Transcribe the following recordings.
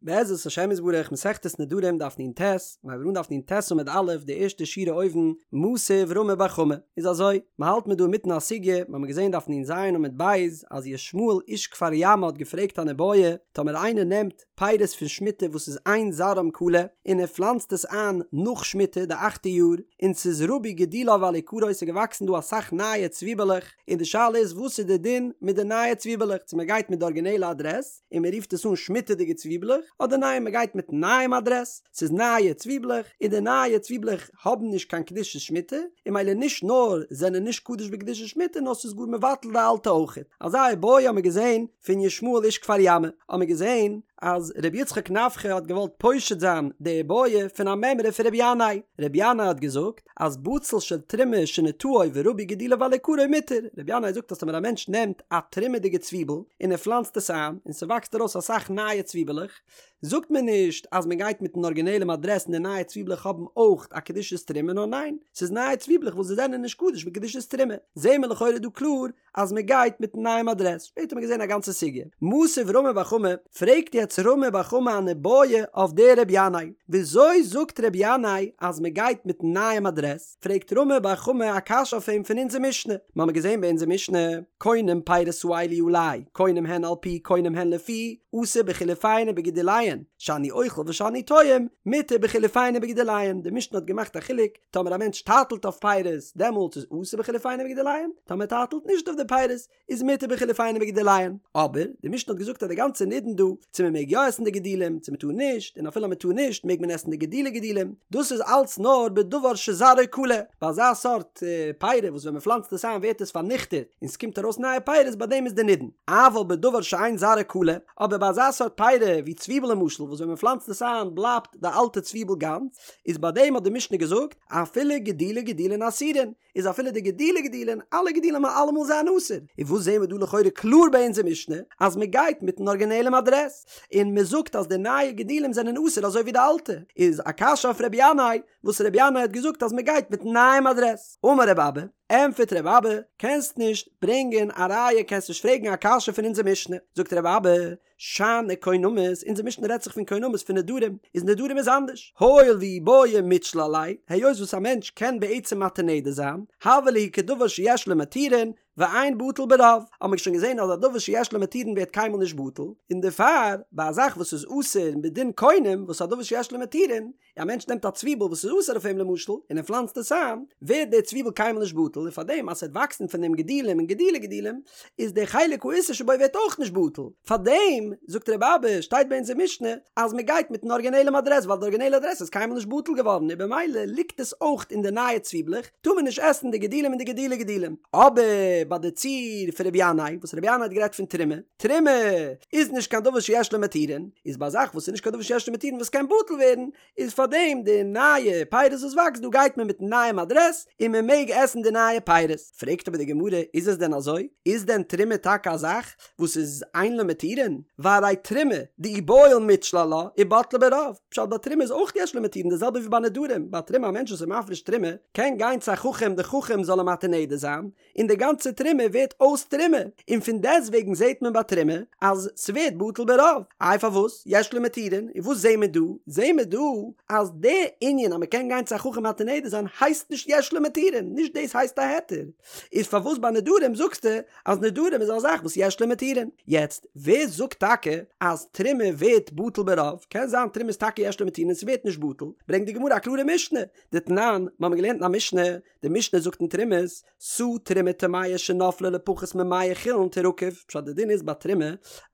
בעזרת השם יתברך מסכת נדרים דף נ"ט, מיר הייבן אן דף נ"ט עמוד א', די ערשטע שורה אויבן, מתיב רמי בר חמא, איז אזוי, מען האלט מיר דא אינמיטן א סוגיא, מיר האבן געזען דף נ"ז עמוד ב', אז ישמעאל איש כפר ימא האט געפרעגט אן איבעיא, טאמער איינער נעמט פירות פון שמיטה וואס איז אין זרעם כלה, און ער פלאנצט עס איין נאך שמיטה די אכטע יאר, און ס'איז רבו גידוליו על עיקרו ס'איז געוואקסן דא אסאך נייע צוויבעלעך, און די שאלה איז וואס איז די דין מיט די נייע צוויבעלעך, צו מען גייט מיט די ארגינעלע אדרעס, און מען רופט עס אן שמיטה'דיגע צוויבלעך, אדער ניין מען גייט מיטן נייעם אדרעס, ס'איז נייע צוויבלעך, און די נייע צוויבלעך האבן נישט קיין קדושת שמיטה, און ממילא נישט נאר זענען נישט קדוש בקדושת שמיטה נאר ס'איז גאר מבטל די אלטע אויכעט. אזא איבעיא האמיר געזען פון ישמעאל איש כפר ימא, האמיר געזען אז ר' יצחק נפחא האט געוואלט פושט זיין די איבעיא פון א מימרא פון ר' ינאי, ר' ינאי האט געזאגט, אז בצל של תרומה שנטעו ורבו גידוליו על עיקרו מותר, רבי ינאי זאגט אז טאמער א מענטש נעמט א תרומה'דיגע צוויבל און ער פלאנצט עס איין און ס'וואקסט ארויס אסאך נייע צוויבעלעך, זאגט מען נישט אז מען גייט מיטן ארגינעלעם אדרעס און די נייע צוויבלעך האבן אויך א קדושת תרומה נאר ניין, ס'איז נייע צוויבלעך וואס זיי זענען נישט קדוש בקדושת תרומה, זעהן מיר לכאורה דא קלאר אז מען גייט מיטן נייעם אדרעס, שפעטער האט מען געזען א גאנצע סוגיא. מתיב רמי בר חמא, פרעגט יעצט רמי בר חמא אן איבעיא אויף דער רבי ינאי, וויאזוי זאגט רבי ינאי אז מען גייט מיטן נייעם אדרעס, פרעגט רמי בר חמא א קשיא אויף אים פון אונזער משנה, מיר האבן געזען ביי אונזער משנה, קונם פירות האלו עלי, קונם הן על פי קונם הן לפי, אסור בחילופיהן ובגידוליהן, שאני אוכל ושאני טועם, מותר בחילופיהן ובגידוליהן, די משנה האט געמאכט א חילוק, טאמער א מענטש טייטלט אויף פירות, דעמאלטס איז אסור בחילופיהן ובגידוליהן, טאמער ער טייטלט נישט אויף די פירות, איז מותר בחילופיהן ובגידוליהן. אבער, די משנה האט געזאגט אז די גאנצע נידון דא, צו מען מעג יא עסן די גידולים, צו מען טאר נישט, און אפילו אז מען טאר נישט, מעג מען עסן די גידולי גידולים, דאס איז אלץ נאר בדבר שזרעו כלה, ביי אזא סארט פירות וואס ווען מען פלאנצט עס איין ווערט עס פארניכטעט, און ס'קומט ארויס נייע פירות, ביי דעם איז די נידון. אבל בדבר שאין זרעו כלה, אבער ביי אזא סארט פירות ווי צוויבל למשל, וואס ווען מען פלאנצט עס איין בלייבט די אלטע צוויבל גאנץ, איז ביי דעם האט די משנה געזאגט, אפילו גידולי גידולין אסורין, איז אפילו די גידולי גידולין, אלע גידולים וועלן אלעמאל זיין אסור. און וואס זעהן מיר דא לכאורה קלאר ביי אונזער משנה, אז מען גייט מיטן ארגינעלעם אדרעס, און מען זאגט אז די נייע גידולים זענען אסור אזוי ווי די אלטע, איז א קשיא אויף רבי ינאי, וואס רבי ינאי האט געזאגט אז מען גייט מיטן נייעם אדרעס. אמר רבי אבא, ענטפערט רבי אבא, קענסט נישט ברענגען א ראיה, קענסט נישט פרעגן א קשיא פון אונזער משנה. זאגט רבי אבא, שאני קונמות, אונזער משנה רעדט זיך פון קונמות פון נדרים, איז נדרים איז אנדערש, הואיל ואי בעי מיתשיל עליה, היות וואס א מענטש קען בעצם מתיר נדר זיין, הוה להו כדבר שיש לו מתירין, ואין בטל ברוב, האט מען שוין געזען אז א דבר שיש לו מתירין ווערט קיינמאל נישט בטל, און דערפאר ביי א זאך וואס איז אסור מדין קונם וואס א דבר שיש לו מתירין, א מענטש נעמט א צוויבל וואס איז אסור אויף אים למשל, און ער פלאנצט עס איין, ווערט דער צוויבל קיינמאל נישט בטל, און פארדעם אז ס'וועט וואקסן פון דעם גידולים און גידולי גידולים, איז דער חלק האיסור שבו ווערט אויך נישט בטל. פארדעם, זאגט רבי אבא, שטייט ביי אונזער משנה, אז מען גייט מיטן ארגינעלעם אדרעס, ווייל די ארגינעלע אדרעס איז קיינמאל נישט בטל געווארן, און במילא ליגט עס אויך אין די נייע צוויבלעך, טאר מען נישט עסן די גידולים און די גידולי גידולים. אבער ביי די ציור פון רבי ינאי, וואס רבי ינאי האט גערעדט פון תרומה, תרומה איז נישט קיין דבר שיש לו מתירין, איז ביי א זאך וואס איז נישט קיין דבר שיש לו מתירין וואס קען בטל ווערן, איז פאר דעם די נייע פירות וואס וואקסט דא גייט מען מיטן נייעם אדרעס און מען מעג עסן די נייע פירות. פרעגט אבער די גמרא, איז עס דען אזוי? איז דען תרומה טאקע א זאך וואס איז אין לו מתירין? והרי תרומה דאי בעי מיתשיל עלה ובטלה ברוב, פשט ביי תרומה איז אויך יש לו מתירין די זעלבע ווי ביי נדרים, ביי תרומה א מענטש וואס איז מפריש תרומה קען גיין צו א חכם די חכם זאל אים מתיר נדר זיין, און די גאנצע תרומה ווערט אויס תרומה, און פון דעסט וועגן זעט מען ביי תרומה אז ס'ווערט בטל ברוב, איי פארוואס יש לו מתירין, און וואס זעהן מיר דא? זעהן מיר דא אז די ענין אז מ'קען גיין צו א חכם מתיר נדר זיין הייסט נישט יש לו מתירין, נישט דאס הייסט א היתר, איז פארוואס ביי נדרים זאגסטו אז נדרים איז א זאך וואס יש לו מתירין? יעצט ווער זאגט טאקע אז תרומה ווערט בטל ברוב? קען זיין תרומה איז טאקע יש לו מתירין און ס'ווערט נישט בטל, ברענגט די גמרא א קלארע משנה, דתנן, מ'האמיר געלערנט אין א משנה, די משנה זאגט אין תרומות, סאה תרומה טמאה שנפלה לפחות ממאה חולין תירקב, פשט די דין איז ביי תרומה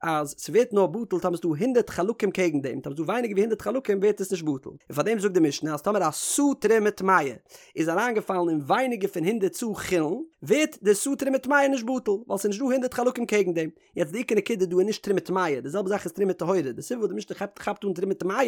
אז ס'ווערט נאר בטל טאמער ס'דא הונדערט חלקים קעגן דעם, טאמער ס'דא ווייניגער ווי הונדערט חלקים ווערט עס נישט בטל, און פארדעם זאגט די משנה אז טאמער א סאה תרומה טמאה איז אריינגעפאלן אין ווייניגער פון הונדערט סאה חולין ווערט די סאה תרומה טמאה נישט בטל ווייל ס'איז נישט דא הונדערט חלקים קעגן דעם, יעצט די עיקר נקודה דא איז נישט תרומה טמאה, די זעלבע זאך איז תרומה טהורה, די סיבה וואס די משנה כאפט כאפט אן תרומה טמאה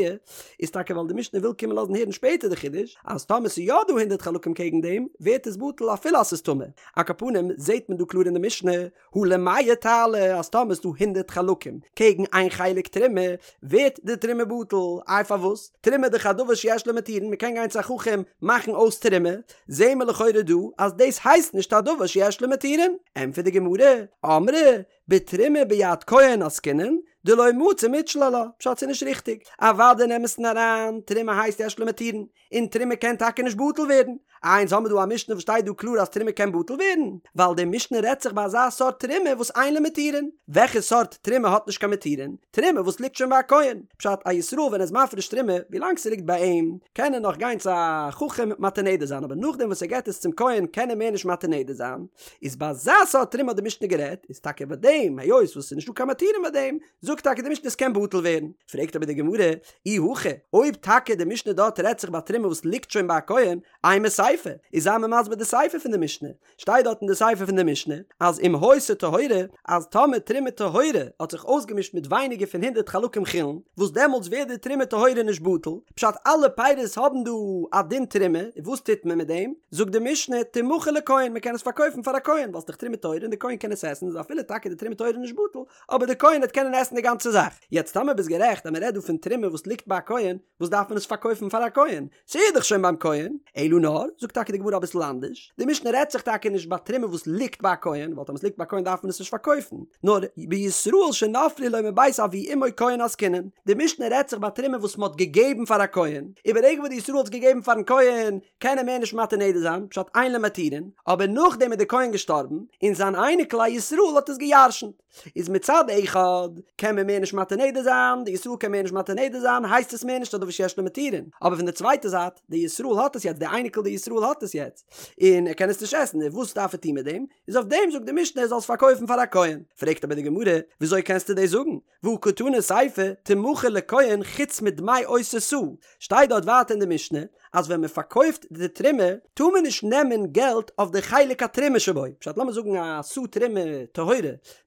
איז טאקע ווייל די משנה וויל קומען לאזן הערן שפעטער די חידוש אז טאמער ס'איז יא דא הונדערט חלקים קעגן דעם ווערט עס בטל אפילו אז ס'איז טמא, על כל פנים זעהט מען דא קלאר אין די משנה הא למאה תעלה אז טאמער איז דא הונדערט חלקים קעגן איין חלק תרומה ווערט די תרומה בטל, איי פארוואס? תרומה דאך א דבר שיש לו מתירין, מ'קען גיין צו א חכם מאכן אויס תרומה, זעהן מיר לכאורה דא אז דאס הייסט נישט א דבר שיש לו מתירין, ענטפערט די גמרא, אמרי, בתרומה ביד כהן עסקינן, דלא מצי מיתשיל עלה, פשט ס'איז נישט ריכטיג, אוודאי אין אמת'ן אריין, תרומה הייסט יש לה מתירין, און תרומה קען טאקע נישט בטל ווערן. איי אונז האמיר דא א משנה וואס שטייט דא קלאר אז תרומה קען בטל ווערן? ווייל די משנה רעדט זיך ביי אזא סארט תרומה וואס אין לה מתירין. וועלכע סארט תרומה האט נישט קיין מתירין? תרומה וואס ליגט שוין ביי א כהן. פשט, א ישראל ווען ער איז מפריש תרומה, ווילאנג ס'ליגט ביי אים, קען ער נאך גיין צו א חכם מתיר נדר זיין, אבער נאכדעם וואס ער געט עס צום כהן קען ער מער נישט מתיר נדר זיין. איז ביי אזא סארט תרומה האט די משנה גערעדט, איז טאקע ביי דעם, היות וואס ס'איז נישטא קיין מתירין ביי דעם, זאגט טאקע די משנה עס קען בטל ווערן. פרעגט אבער די גמרא, אי הכי, אויב טאקע די משנה דארט רעדט זיך ביי תרומה וואס ליגט שוין ביי א כהן, אימא סיפא, איז זיי מיר מסביר די סיפא פון די משנה, שטייט דארט אין די סיפא פון די משנה, אז אם היתה טהורה, אז טאמער תרומה טהורה האט זיך אויסגעמישט מיט ווייניגער פון הונדרעט חלקים חולין, וואס דעמאלטס ווערט די תרומה טהורה נישט בטל, פשט אלע פירות האבן דא א דין תרומה, און וואס טוט מען מיט דעם? זאגט די משנה, תמכר לכהן, מען קען עס פארקויפן פאר א כהן, ווייל ס'איז דאך תרומה טהורה און די כהן קען עס עסן, איז אפילו טאקע די תרומה טהורה נישט בטל, אבער די כהן וועט קענען עסן די גאנצע זאך. יעצט טאמער ביסט גערעכט אז מען רעדט דא פון תרומה וואס ליגט ביי א כהן, וואס דארף מען עס פארקויפן פאר א כהן? ס'איז דאך שוין ביים כהן. אלא נאר, זאגט טאקע די גמרא אביסל אנדערש, די משנה רעדט זיך טאקע נישט ביי תרומה וואס ליגט ביי א כהן, ווייל טאמער עס ליגט ביי א כהן דארף מען עס נישט פארקויפן, נאר בישראל שנפלו לו מבית אבי אמו כהן עסקינן, די משנה רעדט זיך ביי תרומה וואס מען האט געגעבן פאר א כהן, און ברגע וואס די ישראל האט עס געגעבן פארן כהן, קען ער מער נישט מתיר נדר זיין, פשט אין לו מתירין, אבער נאכדעם איז די כהן געשטארבן, און זיין אייניקל א ישראל האט עס גע'ירש'נט. איז מצד אחד קען מען מער נישט מתיר נדר זיין, די ישראל קען מער נישט מתיר נדר זיין, הייסט עס מער נישט א דבר שיש לו מתירין, אבער פון די צווייטע זייט, די ישראל האט עס יעצט, די אייניקל די ישראל האט עס יעצט, און ער קען עס נישט עסן, און וואס דארף ער טון מיט דעם? איז אויף דעם זאגט די משנה ער זאל עס פארקויפן פאר א כהן. פרעגט אבער די גמרא, וויאזוי קענסטו דאס זאגן? והא קתני סיפא, תמכר לכהן חוץ מדמי אותה סאה, שטייט דארט ווייטער אין די משנה אז ווען מען פארקויפט די תרומה טאר מען נישט נעמען געלט אויף די חלק התרומה שבו, פשט לאמיר זאגן א סאה תרומה טהורה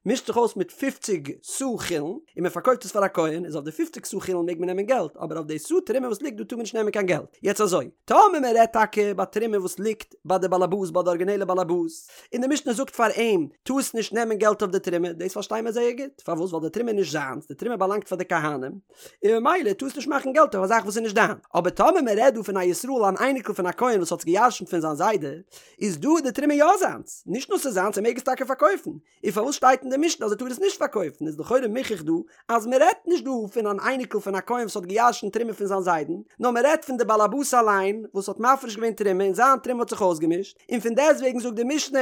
מישט זיך אויס מיט פופציג סאה חולין און מען פארקויפט עס פאר א כהן איז אויף די פופציג סאה חולין מעג מען נעמען געלט אבער אויף די סאה תרומה וואס ליגט דא טאר מען נישט נעמען קיין געלט, יעצט אזוי טאמער מען רעדט טאקע ביי תרומה וואס ליגט ביי די באלעבאס ביי די ארגינעלע באלעבאס און די משנה זאגט פאר אים טארסט נישט נעמען געלט אויף די תרומה, דאס פארשטיי מיר זייער גוט, פארוואס? ווייל די תרומה איז נישט זיינס, די תרומה באלאנגט פאר די כהנים, און ממילא טארסט נישט מאכן געלט אויף א זאך וואס איז נישט דיין. אבער טאמער מען רעדט דא פון א ישראל אן אייניקל פון א כהן וואס האט עס געירשנט פון זיין זיידע, איז דא די תרומה יא זיינס, נישט נאר ס'איז זיינס ער מעג עס טאקע פארקויפן, און פארוואס שטייט אין די משנה אז ער טאר עס נישט פארקויפן, איז לכאורה מוכח דא אז מען רעדט נישט דא פון אן אייניקל פון א כהן וואס האט געירשנט תרומה פון זיין זיידן, נאר מען רעדט פון די באלעבאס אליין וואס האט מפריש געווען תרומה און זיין תרומה האט זיך אויסגעמישט, און פון דעסטוועגן זאגט די משנה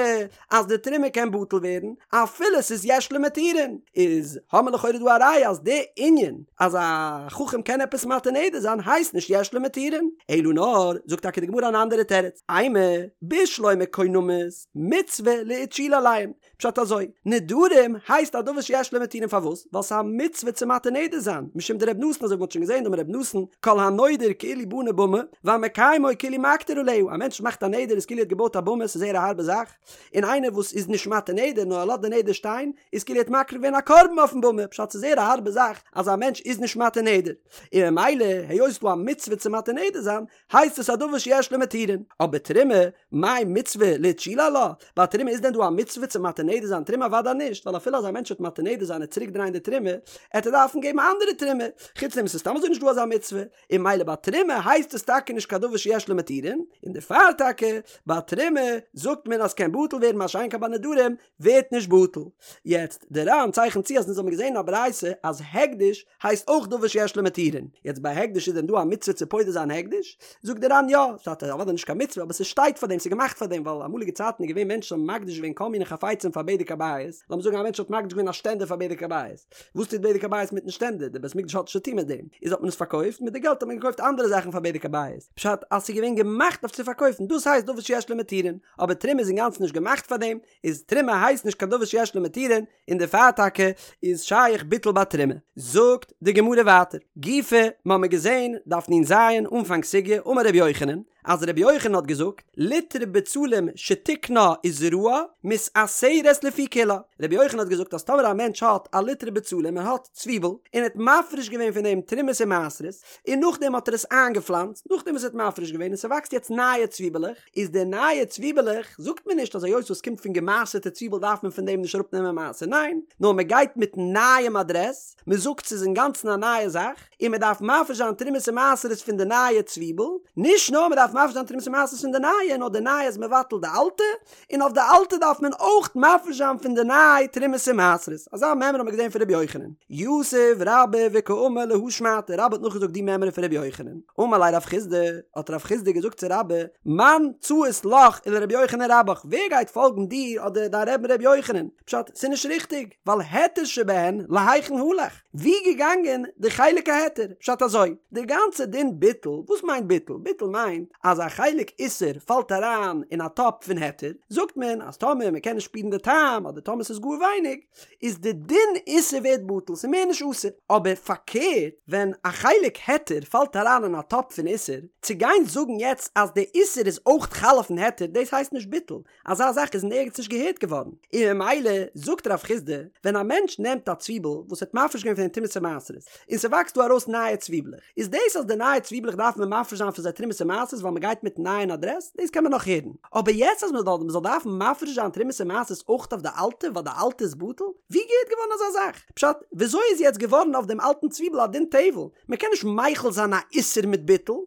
אז די תרומה קען בטל ווערן אפילו ס'איז יש לו מתירין, איז האמער לכאורה דא א ראיה אז די ענין אז א חכם קען עפעס מתיר נדר זיין הייסט נישט יש לו מתירין, אלא נאר זאגט טאקע די גמרא אן אנדערע תירוץ, אימא בשלמא קונמות מצוה לאיתשולי עליהן, פשט אזוי, נדרים הייסט א דבר שיש לו מתירין פארוואס? ווייל ס'איז א מצוה צו מתיר נדר זיין, משום דרבי נתן אזוי ווי מ'האט שוין געזען דאמר רבי נתן, כל הנודר כאילו בנה במה, והמקיימו כאילו מקטיר עליה, א מענטש מאכט א נדר איז כאילו ער האט געבויט א במה, ס'איז זייער א הארבע זאך, און איינער וואס איז נישט מתיר נדר נאר ער לאזט די נדר שטיין, איז כאילו ער האט מקריב געווען א קרבן אויפן במה, פשט ס'איז זייער א הארבע זאך אז א מענטש איז נישט מתיר נדר, און ממילא היות ס'איז דא א מצוה צו מתיר נדר זיין, הייסט עס א דבר שיש לו מתירין, אבער תרומה, מאי מצוה לאיתשולי עלה? ביי תרומה איז דען דא א מצוה צו מתיר נדר זיין תרומה? אוודאי נישט, ווייל אפילו אז א מענטש וועט מתיר נדר זיין און צוריק דרייען די תרומה, עט ער דארפן געבן א אנדערע תרומה, חוץ דעם ס'איז סתם אזוי נישט דא אזא מצוה, און ממילא ביי תרומה הייסט עס טאקע נישט קיין דבר שיש לו מתירין, און דערפאר טאקע ביי תרומה זאגט מען אז ס'קען בטל ווערן מה שאין כן ביי נדרים ווערט נישט בטל. יעצט, די ר"ן צייכנט צו אז אונז האבן געזען אין א ברייתא אז הקדש הייסט אויך דבר שיש לו מתירין. יעצט ביי הקדש איז דען דא א מצוה צו פודה זיין הקדש? זאגט די ר"ן יא, ס'איז אוודאי נישט קיין מצוה אבער ס'שטייט פאר דעם, ס'איז געמאכט פאר דעם, ווייל אמאליגע צייטן איז געווען מענטשן האבן מקדיש געווען כל מיני חפצים פאר בדק הבית, לאמיר זאגן א מענטש האט מקדיש געווען א שטענדער פאר בדק הבית, וואס טוט בדק הבית מיטן שטענדער? די בית מקדש האט נישט צוטון מיט דעם, איז האט מען עס פארקויפט, מיט די געלט האט מען געקויפט אנדערע זאכן פאר בדק הבית, פשט אז ס'איז געווען געמאכט אויף צו פארקויפן, דאס הייסט דבר שיש לו מתירין, אבער תרומה איז אינגאנצן נישט געמאכט פאר דעם, איז תרומה הייסט נישט קיין דבר שיש לו מתירין, און דערפאר טאקע איז שייך ביטול ביי תרומה. זאגט די גמרא ווייטער, גופא, מ'האמיר געזען, דף נ"ז, אנפאנג סוגיא, אמר רבי יוחנן, אז רבי יוחנן האט געזאגט, ליטרא בצלים שתיקנה וזרעה, מתעשרת לפי כולה. רבי יוחנן האט געזאגט אז טאמער א מענטש האט א ליטרא בצלים, ער האט צוויבל, און ער האט מפריש געווען פון דעם תרומות און מעשרות, און נאכדעם האט ער עס איינגעפלאנצט, נאכדעם וואס ער האט מפריש געווען און ס'וואקסט יעצט נייע צוויבעלעך, איז די נייע צוויבעלעך, זאגט מען נישט אז היות וואס קומט פון געמעשר'טע צוויבל דארף מען פון דעם נישט אראפנעמען מעשר, ניין, נאר מען גייט מיטן נייעם אדרעס, מען זאגט ס'איז אינגאנצן א נייע זאך, און מען דארף מפריש זיין תרומות און מעשרות פון די נייע צוויבל, נישט נאר מען דארף. מפריש זיין תרומות ומעשרות פון די נייע, נאר די נייע איז מבטל די אלטע, און אויף די אלטע דארף מען אויך מפריש זיין פון די ניי תרומות און מעשרות. אזא מימרא האט מען געזען פון רבי יוחנן. יתיב רבה וקאמר להא שמעתא, רבה האט נאכגעזאגט די מימרא פון רבי יוחנן. אמר ליה רב חסדא, האט רב חסדא געזאגט צו רבה, מאן ציית לך ולרבי יוחנן רבך, ווער גייט פאלגן דיר אדער דיין רבי'ן רבי יוחנן? פשט, ס'איז נישט ריכטיג, ווייל היתר שבהן להיכן הלך? ווי געגאנגען די חלק ההיתר? פשט אזוי, די גאנצע דין ביטול, וואס מיינט ביטול? ביטול מיינט אז א חלק איסור פאלט אריין אין א טאפ פון היתר, זאגט מען אז טאמער מען קען נישט שפירן די טעם אדער טאמער ס'איז גאר ווייניג, איז די דין איסור ווערט בטל, ס'איז מער נישט אסור. אבער פארקערט, ווען א חלק היתר פאלט אריין אין א טאפ פון איסור, צו גיין זאגן יעצט אז די איסור איז אויך חל אויפן היתר, דאס הייסט נישט ביטול, אזא זאך איז אין ערגעץ נישט געהערט געווארן, און ממילא זאגט רב חסדא, ווען א מענטש נעמט א צוויבל וואס האט מפריש געווען פון דעם תרומות ומעשרות, און ס'וואקסט דא ארויס נייע צוויבלעך, איז דאס אז די נייע צוויבלעך דארף מען מפריש זיין פון זיי תרומות ומעשרות ווייל מ'גייט מיטן נייען אדרעס, דאס קען מען נאך הערן. אבער יעצט אז מ'זאל דארפן מפריש זיין תרומות ומעשרות אויך אויף די אלטע ווייל די אלטע איז בטל? ווי געהערט געווארן אזא זאך? פשט, וויאזוי איז יעצט געווארן אויף דעם אלטן צוויבל א דין טבל? מ'קען נישט מחיל זיין א איסור מיט ביטול,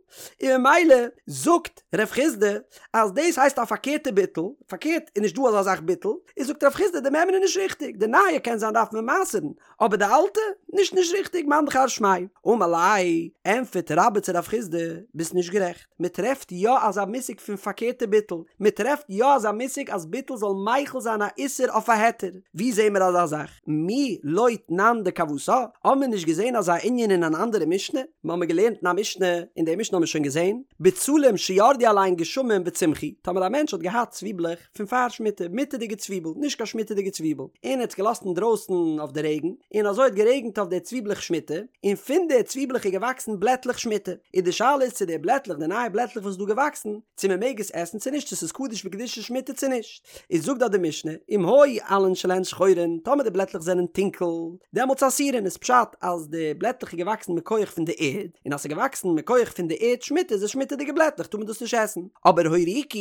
און ממילא זאגט רב חסדא אז דאס הייסט א פארקערטע ביטול, פארקערט איז נישט דא אזא זאך ביטול, איז זאגט רב חסדא די מימרא איז נישט ריכטיג, די נייע קען זיין דארף מען מעשר'ן, אבער די אלטע? נישט נישט ריכטיג, מאן דכר שמיה. אמר ליה, ענטפערט רבה צו רב חסדא, ביסט נישט גערעכט, מען טרעפט יא אזא מושג פון פארקערטע ביטול, מען טרעפט יא אזא מושג אז ביטול זאל מחיל זיין א איסור אויף א היתר, ווי זעהן מיר אזא זאך? מי לא תנן דכוותה? האבן מיר נישט געזעהן אזא ענין אין אן אנדערע משנה? מיר האבן געלערנט אין א משנה, און די משנה האבן מיר שוין געזעהן, בצלים שירדו עליהן גשמים וצמחו, טאמער א מענטש האט געהאט צוויבלעך פון פאר שמיטה, מותר'דיגע צוויבל, נישט קיין שמיטה'דיגע צוויבל, און ער האט עס געלאזט אינדרויסן אויף די רעגן, און אזוי האט גערעגנט אויף די צוויבלעך שמיטה, און פון די צוויבלעך איז געוואקסן בלעטלעך שמיטה, און די שאלה איז צו די בלעטלעך, די נייע בלעטלעך וואס איז דא געוואקסן, צו מען מעג עס עסן צו נישט, צו ס'איז קדוש בקדושת שמיטה צו נישט. איז זאגט דארט די משנה, אם היו עלין שלהן שחורין, טאמער די בלעטלעך זענען טונקל, דעמאלטס אסורין, איז פשט אז די בלעטלעך איז געוואקסן מכח פון די ערד, און אז ס'איז געוואקסן מכח פון די ערד שמיטה איז עס שמיטה'דיגע בלעטלעך טאר מען דאס נישט עסן, אבער הוריקו,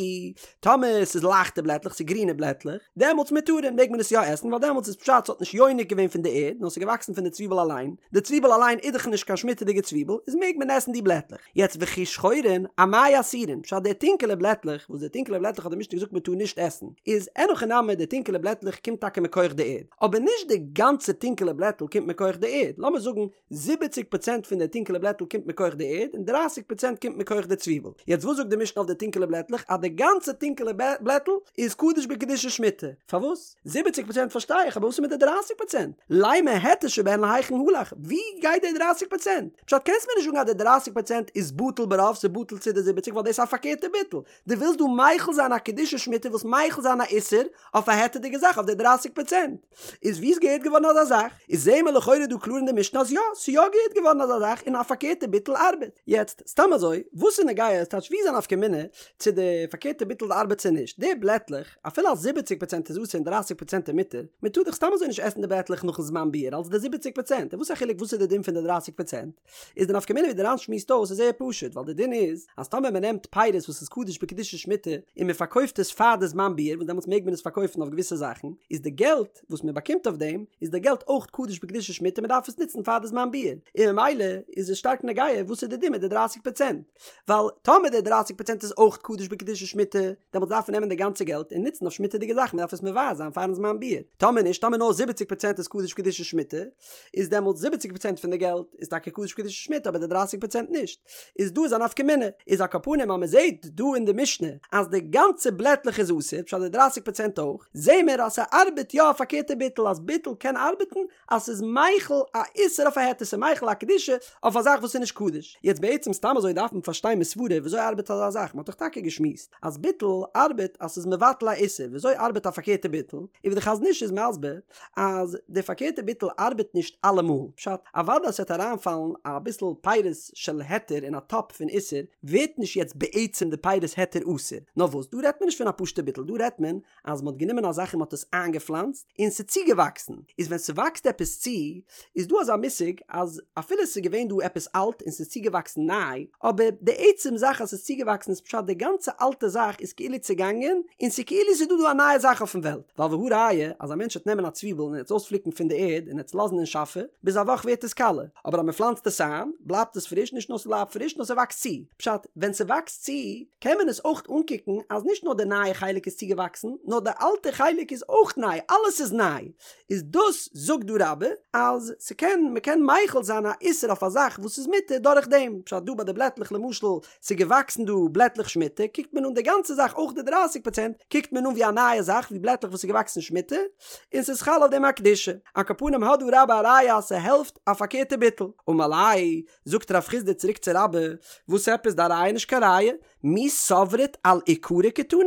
טאמער ס'איז לייכטע בלעטלעך, ס'איז גרינע בלעטלעך, דעמאלטס מותרין מעג מען עס יא עסן, ווייל דעמאלטס איז פשט ס'האט נישט יונק געווען פון די ערד, נאר ס'איז געוואקסן פון די צוויבל אליין, די צוויבל אליין איז דאך נישט קיין שמיטה'דיגע צוויבל, איז מעג מען עסן די בלעטלעך. יעצט וכי שחורין, אמאי אסורין, פשט די טונקעלע בלעטלעך, וואס די טונקעלע בלעטלעך האט די משנה געזאגט מען טאר נישט עסן, איז אין הכי נמי די טונקעלע בלעטלעך קומט טאקע מכח די ערד, אבער נישט די גאנצע טונקעלע בלעטל קומט מכח די ערד, לאמיר זאגן זיבעציג פראצענט פון די טונקעלע בלעטל קומט מכח די ערד און דרייסיג פראצענט קומט מכח די צוויבל, יעצט וואס זאגט די משנה אויף די טונקעלע בלעטלעך אז די גאנצע טונקעלע בלעטל איז קדוש בקדושת שמיטה, פארוואס? זיבעציג פראצענט פארשטיי איך, אבער וואס איז מיט די דרייסיג פראצענט? לימא היתר שבהן להיכן הלך, ווי גייט די דרייסיג פראצענט? פשט קענסט מיר נישט זאגן אז די דרייסיג פראצענט איז בטל ברוב ס'איז בטל צו די זיבעציג ווייל דאס איז א פארקערטע ביטול, דו ווילסט דא מחיל זיין א קדושת שמיטה ווילסט מחיל זיין א איסור אויף א היתר'דיגע זאך אויף די דרייסיג פראצענט, איז ווי איז געהערט געווארן אזא זאך? איז זעהן מיר לכאורה דא קלאר אין די משנה אז יא, ס'איז יא געהערט געווארן אזא זאך און א פארקערטע ביטול ארבעט. יעצט, סתם אזוי, וואס איז נוגע, ס'טייטש ווי איז א נפקא מינה צו די פארקערטע ביטול ארבעט צו נישט? די בלעטלעך, אפילו אז זיבעציג פראצענט איז אסור און דרייסיג פראצענט איז מותר, מען טאר דאך סתם אזוי נישט עסן די בלעטלעך נאכן זמן ביעור אלס די זיבעציג פראצענט, און וואס א חילוק וואס איז די דין פון די דרייסיג פראצענט? איז די נפקא מינה ווי די ר"ן שמועסט אויס איז זייער פשוט ווייל די דין איז אז טאמער מען נעמט פירות וואס איז קדוש בקדושת שמיטה און מען פארקויפט עס פאר די זמן ביעור וואס דעמאלטס מעג מען עס פארקויפן אויף געוויסע זאכן איז די געלט וואס מען באקומט אויף דעם איז די געלט אויך קדוש בקדושת שמיטה מען דארף עס נוצן פאר די זמן ביעור און ממילא איז עס שטארק נוגע וואס איז די דין מיט די דרייסיג פראצענט ווייל טאמער די דרייסיג פראצענט איז אויך קדוש בקדושת שמיטה דעמאלטס דארף מען נעמען די גאנצע געלט און נוצן אויף שמיטה'דיגע זאכן מען דארף עס מבער זיין פארן זמן ביעור טאמער נישט טאמער נאר זיבעציג פראצענט איז קדוש בקדושת שמיטה איז דעמאלטס זיבעציג פראצענט פון די געלט איז טאקע קדוש בקדושת שמיטה אבער די דרייסיג פראצענט נישט איז דא איז א נפקא מינה איז על כל פנים אז מען זעט דא אין די משנה אז די גאנצע בלעטלעך איז אסור פשט די דרייסיג פראצענט אויך זעהן מיר אז ס'ארבעט יא א פארקערטע ביטול אז ביטול קען ארבעטן אז ס'איז מחיל א איסור אויף א היתר ס'איז מחיל א קדושה אויף א זאך וואס איז נישט קדוש יעצט בעצם סתם אזוי דארף מען פארשטיין מסברה וויאזוי ארבעט אזא זאך מ'האט דאך טאקע געשמועסט אז ביטול ארבעט אז ס'איז מבטל א איסור וויאזוי ארבעט א פארקערטע ביטול און ווי די חזון איש איז מסביר אז די פארקערטע ביטול ארבעט נישט אלעמאל, פשט, אוודאי אז ס'וועט אריינפאלן אביסל פירות של היתר אין א טאפ פון איסור, ווערט נישט יעצט בעצם די פירות היתר אסור, נאר וואס, דא רעדט מען נישט פון א פשוטע ביטול, דא רעדט מען אז מ'האט גענומען א זאך און מ'האט עס איינגעפלאנצט און ס'איז צוגעוואקסן, איז ווען ס'וואקסט עפעס צו, איז דא אזא מושג אז אפילו ס'איז געווען דא עפעס אלט און ס'איז צוגעוואקסן ניי, אבער די עצם זאך אז ס'איז צוגעוואקסן איז פשט די גאנצע אלטע זאך איז כאילו צעגאנגען און ס'איז כאילו ס'איז דא דא א נייע זאך אויפן וועלט, ווייל והא ראיה אז א מענטש וועט נעמען א צוויבל און עס אויספליקן פון די ערד און עס לאזן אין שאפע, ביז א וואך ווערט עס קאלע, אבער אז מ'פלאנצט עס איין בלייבט עס פריש, נישט נאר ס'בלייבט פריש נאר ס'וואקסט צו, פשט ווען. ווען ס'וואקסט צו קען מען עס אויך אנקוקן אז נישט נאר די נייע חלק איז צוגעוואקסן נאר די אלטע חלק איז אויך ניי, אלעס איז ניי, איז דאס זאגט דא רבה אז ס'קען מ'קען מחיל זיין א איסור אויף א זאך וואס איז מותר דורך דעם, פשט דא ביי די בלעטלעך למשל ס'איז געוואקסן דא בלעטלעך שמיטה קוקט מען אן די גאנצע זאך אויך די דרייסיג פראצענט קוקט מען אן ווי א נייע זאך ווי בלעטלעך וואס איז געוואקסן שמיטה און ס'איז חל אויף דעם א קדושה, על כל פנים האט דא רבה א ראיה אז ס'העלפט א פארקערטע ביטול, אמר ליה זאגט רב חסדא צוריק צו רבה, וואס עפעס דיין ראיה נישט קיין ראיה? מי סברת על עיקרו קתני?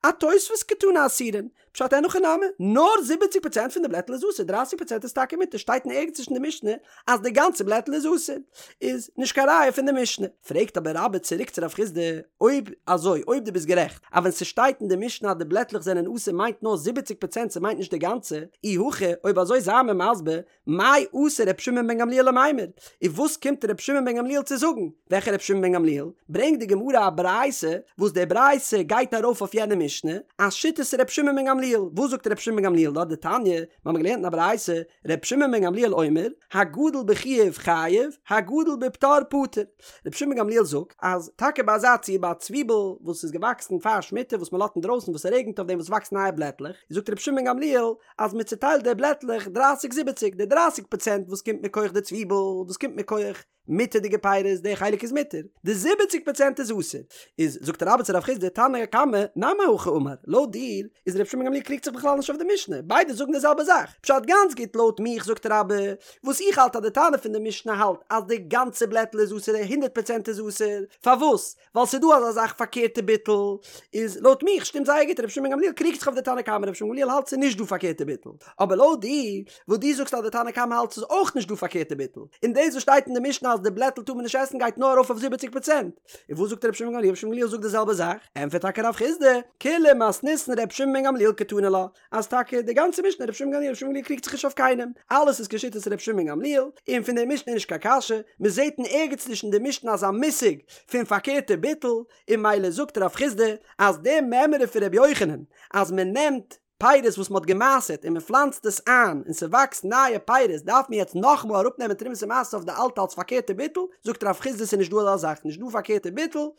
אתוספת קתני אסורין. פשט אין הכי נמי, נאר זיבעציג פראצענט פון די בלעטל איז אסור, דרייסיג פראצענט איז טאקע מותר, שטייט אין ערגעץ נישט אין די משנה אז די גאנצע בלעטל איז אסור, איז נישט קיין ראיה פון די משנה. פרעגט אבער רבה צוריק צו רב חסדא, אויב אזוי, אויב דו ביסט גערעכט אז ווען ס'שטייט אין די משנה אז די בלעטלעך זענען אסור מיינט נאר זיבעציג פראצענט ס'מיינט נישט די גאנצע, אי הכי, אויב אזוי זיי מיר מסביר, מאי אתא ר' שמעון בן גמליאל למימר? און וואס קומט ר' שמעון בן גמליאל צו זאגן? וועלכע ר' שמעון בן גמליאל? ברענגט די גמרא א ברייתא וואס די ברייתא גייט ארויף אויף יענע משנה, אז שיטת ר' שמעון בן גמליאל. וואס זאגט ר' שמעון בן גמליאל דארט? דתניא, מיר האבן געלערנט אין א ברייתא, ר' שמעון בן גמליאל אומר, הגדל בחיוב חייב, הגדל בפטור פטור. ר' שמעון בן גמליאל זאגט אז טאקע ביי אזא ציור ביי א צוויבל וואס איז געוואקסן פאר שמיטה וואס מען לאזט אינדרויסן וואס ס'רעגנט אויף דעם וואס וואקסט נייע בלעטלעך, זאגט ר' שמעון בן גמליאל אז מען צוטיילט די בלעטלעך דרייסיג זיבעציג, די דרייסיג פראצענט וואס קומט מכח די צוויבל, וואס קומט מכח מותר'דיגע פירות, די חלק איז מותר, די זיבעציג פראצענט איז אסור. איז זאגט רבה צו רב חסדא תנא קמא נמי הכי אמר, לויט דיר איז רבי שמעון גמליאל קריגט זיך בכלל נישט אויף די משנה, ביידע זאגן די זעלבע זאך, פשט גאנץ גוט לויט מיך זאגט רבה, וואס איך האלט אז די תנא פון די משנה האלט אז די גאנצע בלעטל איז אסור הונדערט פראצענט איז אסור, פארוואס? ווייל ס'איז דא אזא זאך פארקערטע ביטול, איז לויט מיך שטימט זייער גוט רבי שמעון בן גמליאל קריגט זיך אויף די תנא קמא רבי שמעון בן גמליאל האלט ס'איז נישט דא פארקערטע ביטול, אבער לויט דיר וואס דו זאגסט אז די תנא קמא האלט ס'איז אויך נישט דא פארקערטע ביטול, און דאס וואס שטייט אין די משנה אז די בלעטל טאר מען נישט עסן גייט נאר ארויף אויף זיבעציג פראצענט, און וואס זאגט רבי שמעון בן גמליאל רבי שמעון בן גמליאל זאגט די זעלבע זאך, ענטפערט טאקע רב חסדא, כולה מתניתין רבי שמעון בן גמליאל קתני לה, אז טאקע די גאנצע משנה רבי שמעון בן גמליאל רבי שמעון בן גמליאל קריגט זיך נישט אויף קיינעם, אלעס איז כשיטת רבי שמעון בן גמליאל, און פון די משנה איז נישט קיין קשיא, מען זעט אין ערגעץ נישט אין די משנה אזא מושג פון פארקערטע ביטול, און ממילא זאגט רב חסדא אז די מימרא פון רבי יוחנן אז מען נעמט פירות וואס מען האט גע'מעשר'ט און מען פלאנצט עס איין און ס'וואקסט נייע פירות דארף מען יעצט נאכאמאל אראפנעמען תרומות ומעשרות אויף די אלטע אלס פארקערטע ביטול, זאגט רב חסדא ס'איז נישט דא אזא זאך נישט דא פארקערטע ביטול,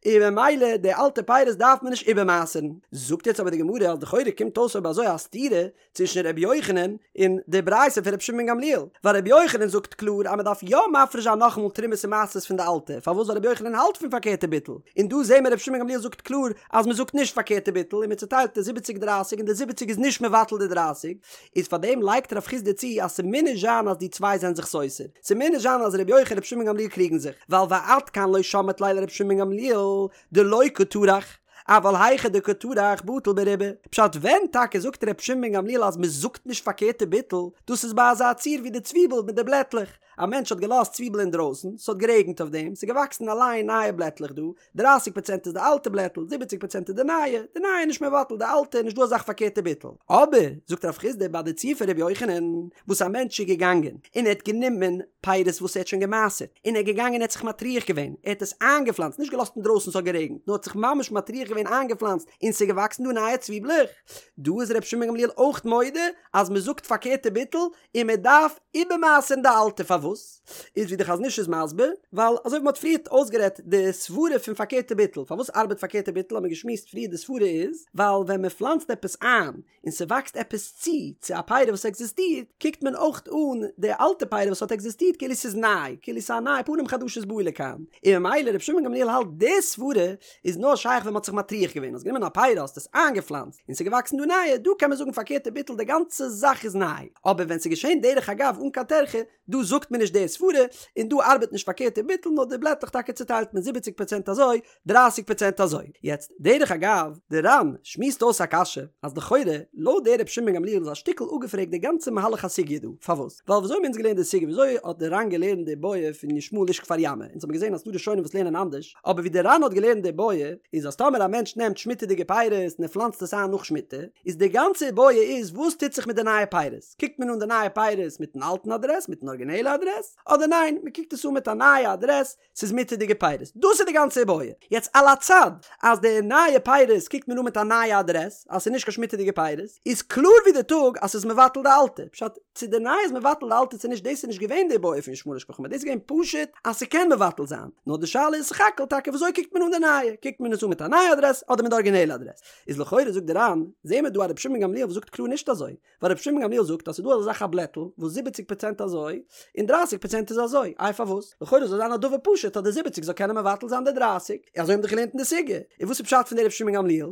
און ממילא די אלטע פירות דארף מען נישט איבערמעשר'ן. זאגט יעצט אבער די גמרא אז לכאורה קומט אויס אויב אזוי א סתירה צווישן ר' יוחנן און די ברייתא פון ר' שמעון בן גמליאל, ווייל ר' יוחנן זאגט קלאר אז מען דארף יא מפריש זיין נאכאמאל תרומות און מעשרות פון די אלטע, פארוואס ווייל ר' יוחנן האלט פון פארקערטע ביטול, און דא זעהן מיר ר' שמעון בן גמליאל זאגט קלאר אז מען זאגט נישט פארקערטע ביטול און מען צוטיילט די זיבעציג דרייסיג און די זיבעציג איז נישט מבטל די דרייסיג, איז פאר דעם לייגט רב חסדא צו אז ס'מוז נישט זיין אז די צוויי זענען זיך סותר, ס'מוז נישט זיין אז ר' יוחנן און ר' שמעון גמליאל קריגן זיך, ווייל ועד כאן לא שמעת ליה לר' שמעון גמליאל דלא קא טרח, אבל היכא דקא טרח בטיל ברובא, פשט ווען טאקע זאגט ר' שמעון בן גמליאל אז מ'זאגט נישט פארקערטע ביטול, דאס איז ביי אזא ציור ווי די צוויבל מיט די בלעטלעך, א מענטש האט געלאזט צוויבל אינדרויסן, ס'האט גערעגנט אויף דעם, ס'איז געוואקסן אליין נייע בלעטלעך דא, דרייסיג פראצענט איז די אלטע בלעטל, זיבעציג פראצענט איז די נייע, די נייע איז נישט מבטל די אלטע, נישט דא אזאך פארקערטע ביטול. אבער, זאגט רב חסדא ביי די ציור פון ר' יוחנן, וואס א מענטש איז געגאנגען און ער האט גענומען פירות וואס ער האט שוין גע'מעשר'ט, און ער איז געגאנגען ער האט זיך מטריח געווען, ער האט עס איינגעפלאנצט, נישט געלאזט אינדרויסן ס'האט גערעגנט, נאר האט זיך ממש מטריח געווען איינגעפלאנצט, און ס'איז געוואקסן דא נייע צוויבלעך. דא איז ר' שמעון גמליאל אויך מודה אז מ'זאגט פארקערטע ביטול, און מען דארף איבערמעשר'ן די אלטע, פארוואס? איז ווי די חזון איש איז מסביר, ווייל אזוי ווי מען האט פריערט אויסגערעדט די סברה פון פארקערטע ביטול, פארוואס ארבעט פארקערטע ביטול האט מען געשמועסט פריער די סברה איז, ווייל ווען מען פלאנצט עפעס איין און ס'וואקסט עפעס צו צו א פרי וואס עקזיסטירט, קוקט מען אויך אן די אלטע פרי וואס האט עקזיסטירט כאילו ס'איז ניי, כאילו ס'איז א ניי פנים חדשות באו לכאן, און ממילא רבי שמעון גמליאל האלט די סברה איז נאר שייך ווען מ'האט זיך מטריח געווען, האסט גענומען א פרי האסט עס איינגעפלאנצט, און ס'איז געוואקסן דא נייע, דא קען מען זאגן פארקערטע ביטול די גאנצע זאך איז ניי, אבער ווען ס'איז געשען דרך אגב אן קיין טרחה, דא זאגט מען נישט די סברה, און דא ארבעט נישט פארקערטע ביטול נאר די בלעטלעך טאקע צוטיילט מען זיבעציג פראצענט אזוי, דרייסיג פראצענט אזוי. יעצט, דרך אגב, די ר"ן שמועסט אויס א קשיא, אז לכאורה, לויט דער רבי שמעון בן גמליאל איז א שטיקל אפגעפרעגט די גאנצע מהלך הסוגיא דא, פארוואס? ווייל וויאזוי האבן אונז געלערנט די סוגיא, וויאזוי האט די ר"ן געלערנט די בעיא פון ישמעאל איש כפר ימא, אונז האבן געזען אז ס'דא ראשונים וואס לערנען אנדערש, אבער ווי די ר"ן האט געלערנט די בעיא, איז אז טאמער א מענטש נעמט שמיטה'דיגע פירות און ער פלאנצט עס איין נאך שמיטה, איז די גאנצע בעיא איז וואס טוט זיך מיט די נייע פירות? קוקט מען אן די נייע פירות מיטן אלטן אדרעס, מיטן ארגינעלע אדרעס? אדרעס, אדער ניין מ'קוקט עס אן מיט א נייע אדרעס, ס'איז מותר'דיגע פירות. דאס איז די גאנצע איבעיא. יעצט על הצד אז די נייע פירות קוקט מען אן מיט א נייע אדרעס, אז ס'איז נישט קיין שמיטה'דיגע פירות, איז קלאר ווי די טאג אז ס'איז מבטל די אלטע. פשט, צו די נייע איז מבטל די אלטע צו נישט דאס איז נישט געווען די איבעיא פון ישמעאל משפחה דאס איז געווען פשוט אז ס'קען מבטל זיין. נאר די שאלה איז סך הכל טאקע וויאזוי קוקט מען אן די נייע, קוקט מען עס אן מיט א נייע אדרעס אדער מיט די ארגינעלע אדרעס. איז לכאורה זאגט די ר"ן, זעהן מיר דא א רבי שמעון גמליאל וואס זאגט קלאר נישט אזוי. ווייל רבי שמעון גמליאל זאגט אז ס'איז דא אזא זאך א בלעטל וואס זיבעציג פראצענט אזוי און דרייסיג פראצענט איז אזוי, איי פארוואס? לכאורה זאל זיין א דבר פשוט אז די זיבעציג זאל קענען מבטל זיין די דרייסיג, אזוי האבן דאך געלערנט אין די סוגיא, און וואס איז פשט פון די רבי שמעון גמליאל?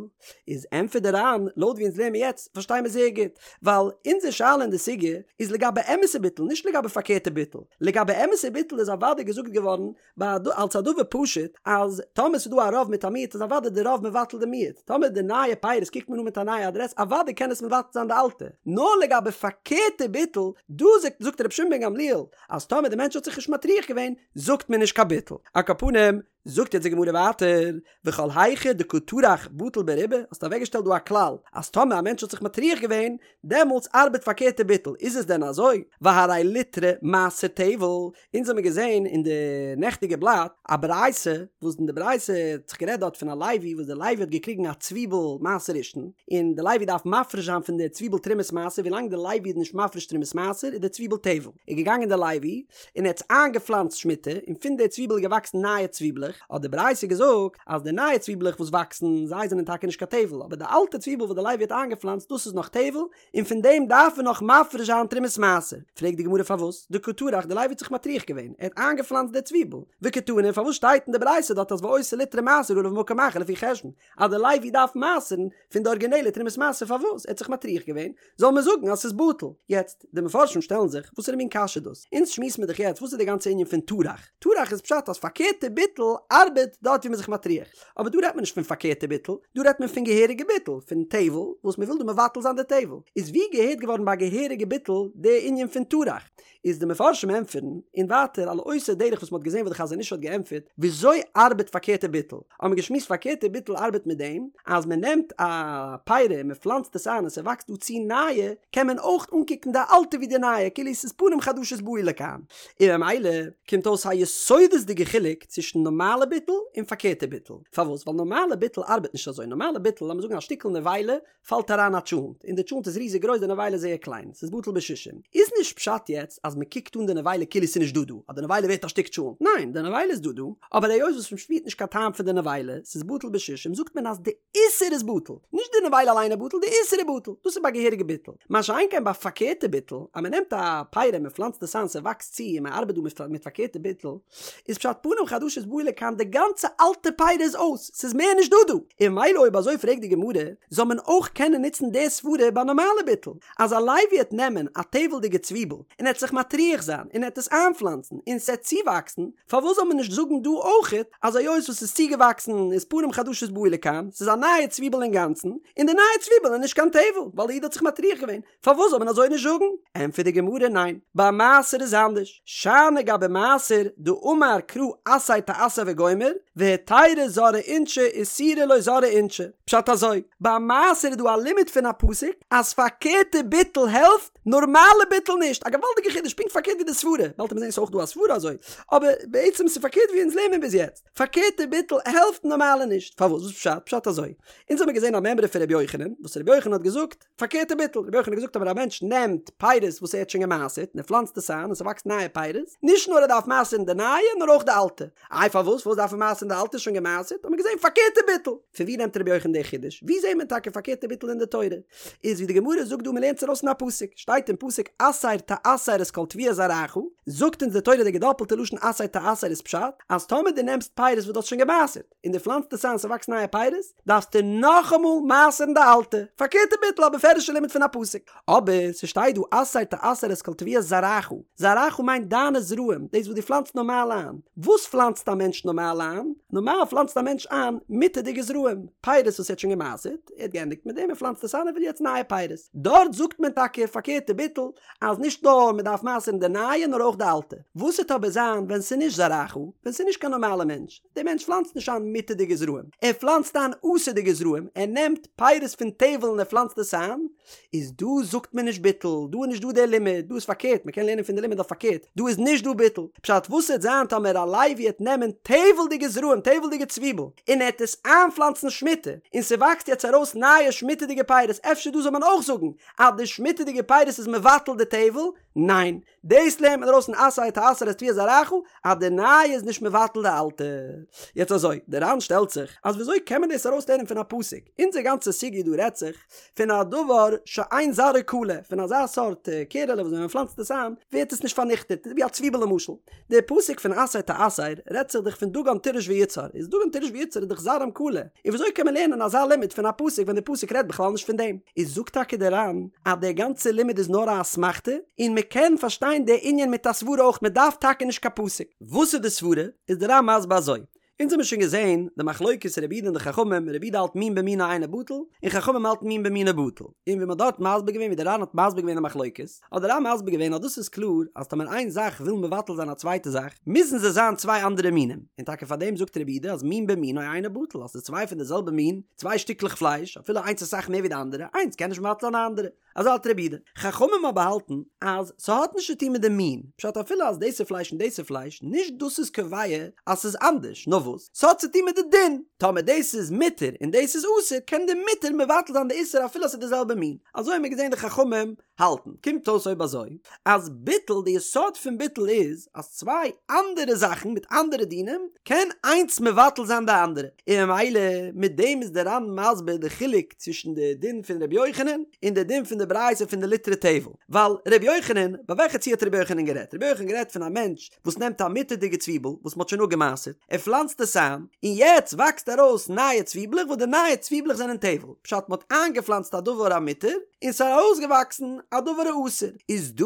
איז ענטפערט די ר"ן, לויט ווי אונז לערנען מיר יעצט פארשטיי מיר זייער גוט, ווייל אונזער שאלה אין די סוגיא איז לגבי אמת'ע ביטול נישט לגבי פארקערטע ביטול, לגבי אמת'ע ביטול איז אוודאי געזאגט געווארן ביי אלס א דבר פשוט אז טאמער ס'איז דא א רוב מיט א מיעוט איז אוודאי די רוב מבטל די מיעוט, טאמער די נייע פירות קוקט מען אן מיט א נייע אדרעס אוודאי קען עס מבטל זיין די אלטע, נאר לגבי פארקערטע ביטול, דא זאגט זאגט רבי שמעון בן גמליאל אז טאמער די מענטש האט זיך נישט מטריח געווען זאגט מען נישט קיין ביטול. על כל פנים, זאגט יעצט די גמרא ווייטער, וכל היכא דקא טרח בטיל ברובא, האסט אוועקגעשטעלט דא א כלל אז טאמער א מענטש האט זיך מטריח געווען דעמאלטס ארבעט פארקערטע ביטול, איז עס דען אזוי? והרי ליטרא מעשר טבל, אונז האמיר געזען אין די נעכטיגע בלאט א ברייתא, וואס אין די ברייתא האט זיך גערעדט דארט פון א לוי וואס די לוי האט געקריגן א צוויבל מעשר ראשון, און די לוי דארף מפריש זיין פון די צוויבל תרומת מעשר, ווילאנג די לוי איז נישט מפריש תרומת מעשר איז די צוויבל טבל, איז געגאנגען די לוי און ער האט עס איינגעפלאנצט שמיטה, און פון די צוויבל איז געוואקסן נייע צוויבלעך, האט די ברייתא געזאגט אז די נייע צוויבלעך וואס וואקסן, זיי זענען טאקע נישט קיין טבל, אבער די אלטע צוויבל וואס די לוי האט איינגעפלאנצט דאס איז נאך טבל, און פון דעם דארף מען נאך מפריש זיין תרומת מעשר. פרעגט די גמרא פארוואס דקא טרח די לוי האט זיך מטריח געווען, ער האט איינגעפלאנצט די צוויבל, וקתני פארוואס שטייט אין די ברייתא דארט אז ואותה ליטרא מעשר עליו ממקום אחר לפי חשבון אז די לוי דארף מעשר'ן פון די ארגינעלע תרומת מעשר פארוואס ער האט זיך מטריח געווען זאל מען זאגן אז ס'איז בטל. יעצט, די מפרשים שטעלן זיך, וואסערע מין קשיא דאס? אונז שמועסן מיר דאך יעצט וואס איז די גאנצע ענין פון טרח? טרח איז פשט אז פארקערטע ביטול ארבעט דארט ווי מ'איז זיך מטריח. אבער דא רעדט מען נישט פון פארקערטע ביטול, דא רעדט מען פון געהעריגע ביטול, פון טבל, וואס מ'וויל דא מבטל זיין די טבל. איז ווי געהערט געווארן ביי געהעריגע ביטול די ענין פון טרח? איז די מפרשים ענטפערן, און ווייטער על אותו דרך וואס מ'האט געזען וואס די חזון איש האט געענטפערט, וויאזוי ארבעט פארקערטע ביטול? האבן מיר געשמועסט פארקערטע ביטול ארבעט מיט דעם אז מען נעמט א פרי און מען פלאנצט עס איין און ס'וואקסט דא צו נייע, קען מען אויך אנקוקן די אלטע ווי די נייע כאילו ס'איז פנים חדשות באו לכאן. און ממילא קומט אויס א יסודות'דיגע חילוק צווישן נארמאלע ביטול און פארקערטע ביטול. פארוואס? ווייל נארמאלע ביטול ארבעט נישט אזוי. נארמאלע ביטול, לאמיר זאגן א שטיקל נבילה פאלט אריין א טשולנט, און די טשולנט איז ריזיג גרויס די נבילה איז זייער קליין, ס'איז בטל בשישים. איז נישט פשט יעצט אז מ'קוקט אן די נבילה כאילו ס'איז נישט דא דא, אז די נבילה ווערט א שטיק טשולנט, ניין, די נבילה איז דא דא, אבער היות וואס מ'שפירט נישט קיין טעם פון די נבילה, ס'איז בטל בשישים, זאגט מען אז די איסור איז בטל, נישט די נבילה אליין איז בטל, די איסור איז בטל, דאס איז ביי געהעריגע ביטול. מה שאין כן ביי פארקערטע ביטול, אז מ'נעמט א פרי און מ'פלאנצט עס איין ס'וואקסט צו און מ'ארבעט דא מיט פארקערטע ביטול, איז פשט פנים חדשות באו לכאן די גאנצע אלטע פרי איז אויס, ס'איז מער נישט דא דא, און ממילא אויב אזוי פרעגט די גמרא, זאל מען אויך קענען נוצן די סברה ביי נארמאלע ביטול, אז א לוי וועט נעמען א טבל'דיגע צוויבל און ער וועט זיך מטריח זיין און ער וועט עס איינפלאנצן און ס'עט צואוואקסן, פארוואס זאל מען נישט זאגן דא אויכעט אז היות וואס ס'איז צוגעוואקסן איז פנים חדשות באו לכאן, ס'איז א נייע צוויבל אינגאנצן, און די נייע צוויבל איז נישט קיין טבל, ווייל די איד האט זיך מטריח געווען, פארוואס זאל מען אזוי נישט זאגן? ענטפערט די גמרא ניין, ביי מעשר איז אנדערש, שאני גבי מעשר דאמר קרא עשר תעשר וגומר, והיתירא זרעי אינשי איסורא לא זרעי אינשי, פשט אזוי, ביי מעשר איז דא א לימוד פון א פסוק אז פארקערטע ביטול העלפט, נארמאלע ביטול נישט, א געוואלדיגע חידוש, פונקט פארקערט ווי די סברה, באלד וועט מען זען ס'איז אויך דא א סברה אזוי, אבער בעצם ס'איז פארקערט ווי אונז לערנען ביז יעצט, פארקערטע ביטול העלפט נארמאלע נישט, פארוואס? וואס פשט? פשט אזוי, אונז האמיר געזען א מימרא פון ר' יוחנן, וואס ר' יוחנן האט געזאגט, פארקערטע ביטול, רבי יוחנן האט געזאגט אויב א מענטש נעמט פירות וואס ער האט שוין געמעשרט און ער פלאנצט עס איין און ס'וואקסט נייע פירות, נישט נאר ער דארף מעשר'ן די נייע נאר אויך די אלטע. איי פארוואס? פארוואס דארף ער מעשר'ן די אלטע? שוין געמעשרט? האט מען געזען פארקערטע ביטול. פון ווי נעמט רבי יוחנן די חידוש? ווי זעט מען טאקע פארקערטע ביטול אין די תורה? איז ווי די גמרא זאגט דא מ'לערנט עס ארויס אין א פסוק, שטייט אין פסוק עשר תעשר את כל תבואת זרעך, זאגט אונז די תורה די געדאפלטע לשון עשר תעשר איז פשט אז טאמער דו נעמסט פירות וואס דו האסט שוין געמעשרט, און דו פלאנצט עס איין ס'וואקסט נייע פירות, דארפסטו נאכאמאל מעשר'ן די אלטע, פארקערטע ביטול א בפירוש'ע לימוד פון א פסוק. אבער ס'שטייט דא עשר תעשר את כל תבואת זרעך, זרעך מיינט דיינע זרעים, דאס וואס דו פלאנצט נארמאל איין. וואס פלאנצט א מענטש נארמאל איין? נארמאל פלאנצט א מענטש איין מותר'דיגע זרעים, פירות וואס ער האט שוין געמעשרט, ער האט געענדיגט מיט דעם, ער פלאנצט עס איין, ער וויל יעצט נייע פירות. דארט זאגט מען טאקע פארקערטע. פארקערטע ביטול אז נישט נאר מען דארף מעשר'ן די נייע נאר אויך די אלטע. וואס וועט אבער זיין ווען ס'איז נישט זרעך, ווען ס'איז נישט קיין נארמאלע מענטש, דער מענטש פלאנצט נישט איין מותר'דיגע זרעים, ער פלאנצט איין אסור'דיגע זרעים, ער נעמט פירות פון טבל און ער פלאנצט עס איין, איז דא זאגט מען נישט ביטול, דא איז נישט דא דער לימוד, דא איז פארקערט, מען קען לערנען פון די לימוד אויף פארקערט, דא איז נישט דא ביטול, פשט וואס וועט זיין טאמער א לוי העט נעמען טבל'דיגע זרעים, טבל'דיגע צוויבל, און ער העט עס איינפלאנצן שמיטה, און ס'וואקסט יעצט ארויס נייע שמיטה'דיגע פירות, אפשר דא זאל מען אויך זאגן אז די שמיטה'דיגע פירות איז מבטל די טבל? ניין, דאס לערנט מען ארויס פון עשר תעשר את תבואת זרעך אז די נייע איז נישט מבטל די אלטע. יעצט אזוי, די ר"ן שטעלט זיך אז וויאזוי קען מען דאס ארויס לערנען פון א פסוק? אונזער גאנצע סוגיא דא רעדט זיך פון א דבר שאין זרעו כלה, פון אזא סארט קערעלע וואס ווען מען פלאנצט עס איין ווערט עס נישט פארניכטעט, ווי א צוויבל למשל. די פסוק פון עשר תעשר רעדט זיך דאך פון דגן תירוש ויצהר, איז דגן תירוש ויצהר איז דאך זרעם כלה, און וויאזוי קען מען לערנען אזא לימוד פון א פסוק ווען די פסוק רעדט בכלל נישט פון דעם? איז זאגט טאקע די ר"ן אז דער גאנצער לימוד איז נאר א אסמכתא, און מען קען פארשטיין די ענין מיט א סברה אויך, מען דארף טאקע נישט קיין פסוק. וואס איז די סברה? איז די ר"ן מסביר אזוי, אונז האבן שוין געזען די מחלוקת רבי יהודה און די חכמים, רבי יהודה האלט מין במינו אינו בטל, און חכמים האלטן מין במינו בטל, און ווי מען האט דארט מסביר געווען ווי די ר"ן האט מסביר געווען די מחלוקת, האט די ר"ן מסביר געווען אז דאס איז קלאר אז טאמער איין זאך וויל מבטל זיין א צווייטע זאך, מוזן זיי זיין צוויי אנדערע מינים, און טאקע פאר דעם זאגט רבי יהודה אז מין במינו אינו בטל, אז ס'איז צוויי פון די זעלבע מין, צוויי שטיקלעך פלייש, אפילו איינס אסאך מער ווי די אנדערע, איינס קען נישט מבטל זיין די אנדערע. אזוי האלט רבי יהודה. חכמים אבער האלטן אז ס'האט נישט צו טון מיט די מין, פשט אפילו אז דאס איז פלייש און דאס איז פלייש, נישט דאס איז קובע אז ס'איז אנדערש, נאר וואס? ס'האט צו טון מיט די דין, טאמער דאס איז מותר און דאס איז אסור, קען די מותר מבטל זיין די איסור אפילו אז ס'איז די זעלבע מין. אזוי האבן מיר געזען די חכמים האלטן. קומט אויס אויב אזוי אז ביטול, די יסוד פון ביטול איז אז צוויי אנדערע זאכן מיט אנדערע דינים קען איינס מבטל זיין די אנדערע, און ממילא מיט דעם איז די ר"ן מסביר די חילוק צווישן די דין פון ר' יוחנן און די דין פון די ברייתא פון די ליטרא טבל, ווייל ר' יוחנן, ביי וועלכע ציור האט ר' יוחנן גערעדט? ר' יוחנן גערעדט פון א מענטש וואס נעמט א מותר'דיגע צוויבל וואס מ'האט שוין אפגע'מעשר'ט, ער פלאנצט עס איין, און יעצט וואקסט ארויס נייע צוויבלעך וואס די נייע צוויבלעך זענען טבל, פשט מ'האט איינגעפלאנצט א דבר המותר און ס'איז ארויסגעוואקסן א דבר האסור, איז דא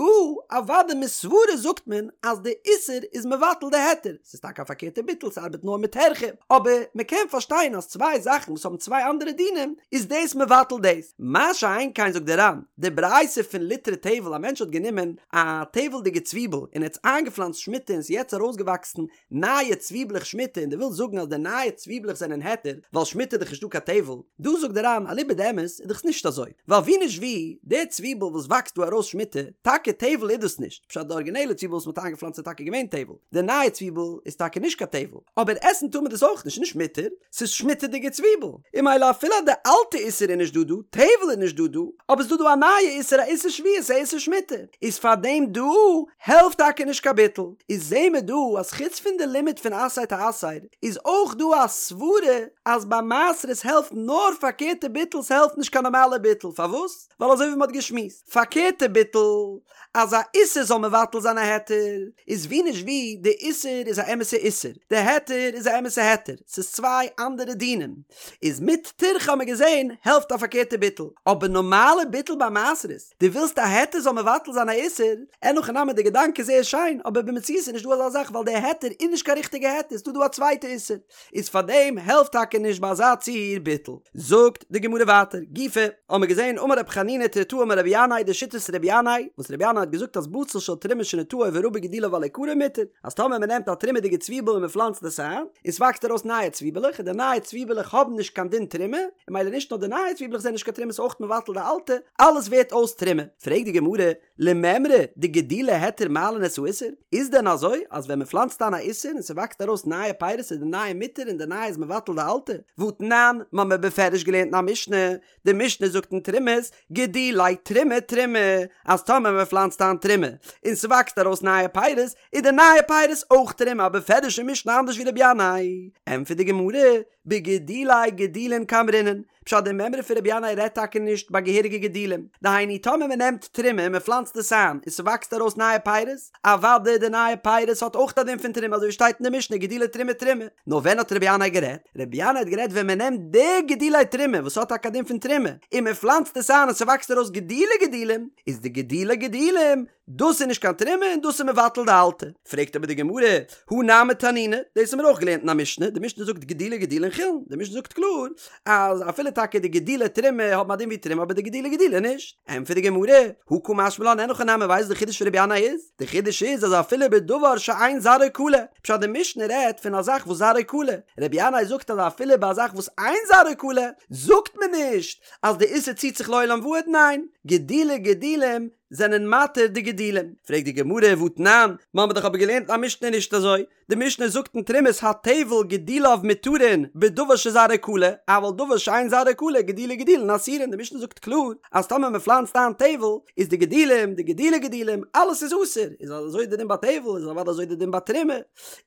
אוודאי מסברה זאגט מען אז די איסור איז מבטל די היתר, ס'איז טאקע א פארקערטע ביטול ס'ארבעט נאר מיט טירחא, אבער מ'קען פארשטיין אז צוויי זאכן וואס האבן צוויי אנדערע דינים איז דאס מבטל דאס, מה שאין כן זאגט די ר"ן, די ברייתא פון ליטרא טבל א מענטש האט גענומען א טבל'דיגע צוויבל און ער האט עס איינגעפלאנצט שמיטה און ס'איז יעצט ארויסגעוואקסן נייע צוויבלעך שמיטה און דו ווילסט זאגן אז די נייע צוויבלעך זענען היתר ווייל שמיטה איז דאך נישטא קיין טבל, דא זאגט די ר"ן אליבא דאמת איז דאך נישט אזוי, ווייל ווי נישט ווי, די צוויבל וואס וואקסט דא ארויס שמיטה, טאקע טבל איז דאס נישט, פשט די ארגינעלע צוויבל וואס מ'האט איינגעפלאנצט איז טאקע געווען טבל, די נייע צוויבל איז טאקע נישט קיין טבל, אבער עסן טאר מען דאס אויך נישט, נישט מותר, ס'איז שמיטה'דיגע צוויבל, און ממילא אפילו אז די אלטע איסור איז נישט דא דא, טבל איז נישט דא דא, אבער ס'דא דא א נייע איסור א איסור שביעית א איסור שמיטה, איז פארדעם דא העלפט טאקע נישט קיין ביטול, איז זעהן מיר דא אז חוץ פון די לימוד פון עשר תעשר איז אויך דא א סברה אז ביי מעשרות העלפט נאר פארקערטע ביטול ס'העלפט נישט קיין נארמאלע ביטול, פארוואס? ווייל אזוי ווי מ'האט געשמועסט, פארקערטע ביטול אז א איסור זאל מבטל זיין א היתר, איז ווי נישט ווי, די איסור איז א אמת'ע איסור, די היתר איז א אמת'ע היתר, ס'איז צוויי אנדערע דינים, איז מיט טירחא האט מען געזען העלפט א פארקערטע ביטול, אבער נארמאלע ביטול ביי מעשרות, דו ווילסט א היתר זאל מבטל זיין א איסור, אין הכי נמי די געדאנק איז זייער שיין, אבער במציאות איז נישט דא אזא זאך ווייל די היתר איז נישט קיין ריכטיגע היתר, ס'דא דא א צווייטע איסור. איז פאר דעם העלפט טאקע נישט ביי אזא ציור ביטול. זאגט די גמרא ווייטער, גופא, האמיר געזען אמר רבי חנינא תריתאה אמר רבי ינאי די שיטת רבי ינאי, וואס רבי ינאי האט געזאגט אז בצל של תרומה שנטעו ורבו גידוליו על עיקרו מותר, אז טאמער מען נעמט א תרומה'דיגע צוויבל און מען פלאנצט עס איין, און ס'וואקסט ארויס נייע צוויבעלעך, און די נייע צוויבעלעך האבן נישט קיין דין תרומה, און ממילא נישט נאר די נייע צוויבעלעך זענען נישט קיין תרומה ס'אויך מבטל די אלטע, אלעס ווערט אויס תרומה. פרעגט די גמרא, למימרא דגידולי היתר מעלין את האיסור? איז דען אזוי אז ווען מ'פלאנצט איין א איסור און ס'וואקסט ארויס נייע פירות איז די נייע מותר און די נייע איז מבטל די אלטע? והתנן, מ'האמיר בפירוש געלערנט אין א משנה, די משנה זאגט אין תרומות, גידולי תרומה תרומה, אז טאמער מ'פלאנצט איין תרומה און ס'וואקסט ארויס נייע פירות איז די נייע פירות אויך תרומה א בפירוש'ע משנה אנדערש ווי רבי ינאי. ענטפערט די גמרא, בגידולי גידולין קאמרינן, פשט די מימרא פון רבי ינאי רעדט טאקע נישט ביי געהעריגע גידולים, דהיינו טאמער מען נעמט תרומה און מען פלאנצט עס איין און ס'וואקסט ארויס נייע פירות, אוודאי די נייע פירות האט אויך א דין פון תרומה אזוי ווי שטייט אין די משנה גידולי תרומה תרומה, נאר ווען האט רבי ינאי גערעדט? רבי ינאי האט גערעדט ווען מען נעמט די גידולי תרומה וואס האט טאקע א דין פון תרומה און מען פלאנצט עס איין און ס'וואקסט. ס'וואקסט ארויס גידולי גידולים, איז די גידולי גידולים דאס איז נישט קיין תרומה און דאס איז מבטל די אלטע. פרעגט אבער די גמרא, הא נמי תנינא, דאס האבן מיר אויך געלערנט אין א משנה, די משנה זאגט גידולי גידולין חולין, די משנה זאגט קלאר אז אפילו טאקע די גידולי תרומה האבן א דין ווי תרומה אבער די גידולי גידולין נישט. ענטפערט די גמרא, הא קא משמע לן אין הכי נמי ווייסט די חידוש פון רבי ינאי איז? די חידוש איז אז אפילו בדבר שאין זרעו כלה, פשט די משנה רעדט פון א זאך וואס זרעו כלה, רבי ינאי זאגט אז אפילו ביי א זאך וואס אין זרעו כלה זאגט מען נישט אז די איסור ציט זיך לעולם ועד, ניין, גידולי גידולים זענען מתיר די גידולים. פרעגט די גמרא והתנן, מ'האמיר דאך אבער געלערנט אין א משנה נישט אזוי, די משנה זאגט אין תרומות הטבל גידוליו מותרין בדבר שזרעו כלה, אבל דבר שאין זרעו כלה גידולי גידולין אסורין, די משנה זאגט קלאר אז טאמער מען פלאנצט איין טבל איז די גידולים, די גידולי גידולים, אלעס איז אסור, איז אזוי די דין ביי טבל איז אוודאי אזוי די דין ביי תרומה,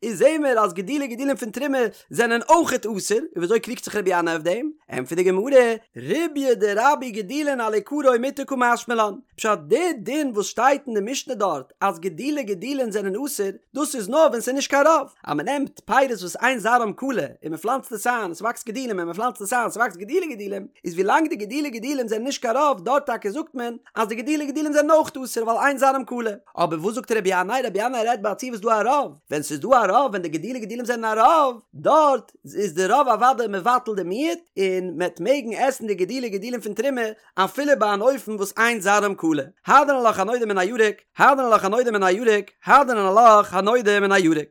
איז זעהן מיר אז גידולי גידולים פון תרומה זענען אויכעט אסור, און וויאזוי קריגט זיך רבי ינאי אויף דעם? ענטפערט די גמרא, ריבויא דרבו גידולין על עיקרו מותר קא משמע לן, פשט די דין וואס שטייט אין די משנה דארט אז גידולי גידולין זענען אסור, דאס איז נאר ווען ס'איז נישט קיין רוב, אז מ'נעמט פירות וואס אין זרעם כלה און מ'פלאנצט עס איין און ס'וואקסט גידולים און מ'פלאנצט עס איין ס'וואקסט גידולי גידולים, איז ווילאנג די גידולי גידולים זענען נישט קיין רוב דארט טאקע זאגט מען אז די גידולי גידולים זענען אויך אסור ווייל אין זרעם כלה. אבער וואס זאגט רבי ינאי? רבי ינאי רעדט ביי א ציור וואס איז דא א רוב, ווען ס'איז דא א רוב ווען די גידולי גידולים זענען א רוב, דארט איז די רוב אוודאי מבטל די מיעוט, און מ'עט מעגן עסן די גידולי גידולים פון תרומה אפילו ביי אן אופן וואס אין זרעם כלה. הדרן עלך הנודר מן הירק, הדרן עלך הנודר מן הירק, הדרן עלך הנודר מן הירק.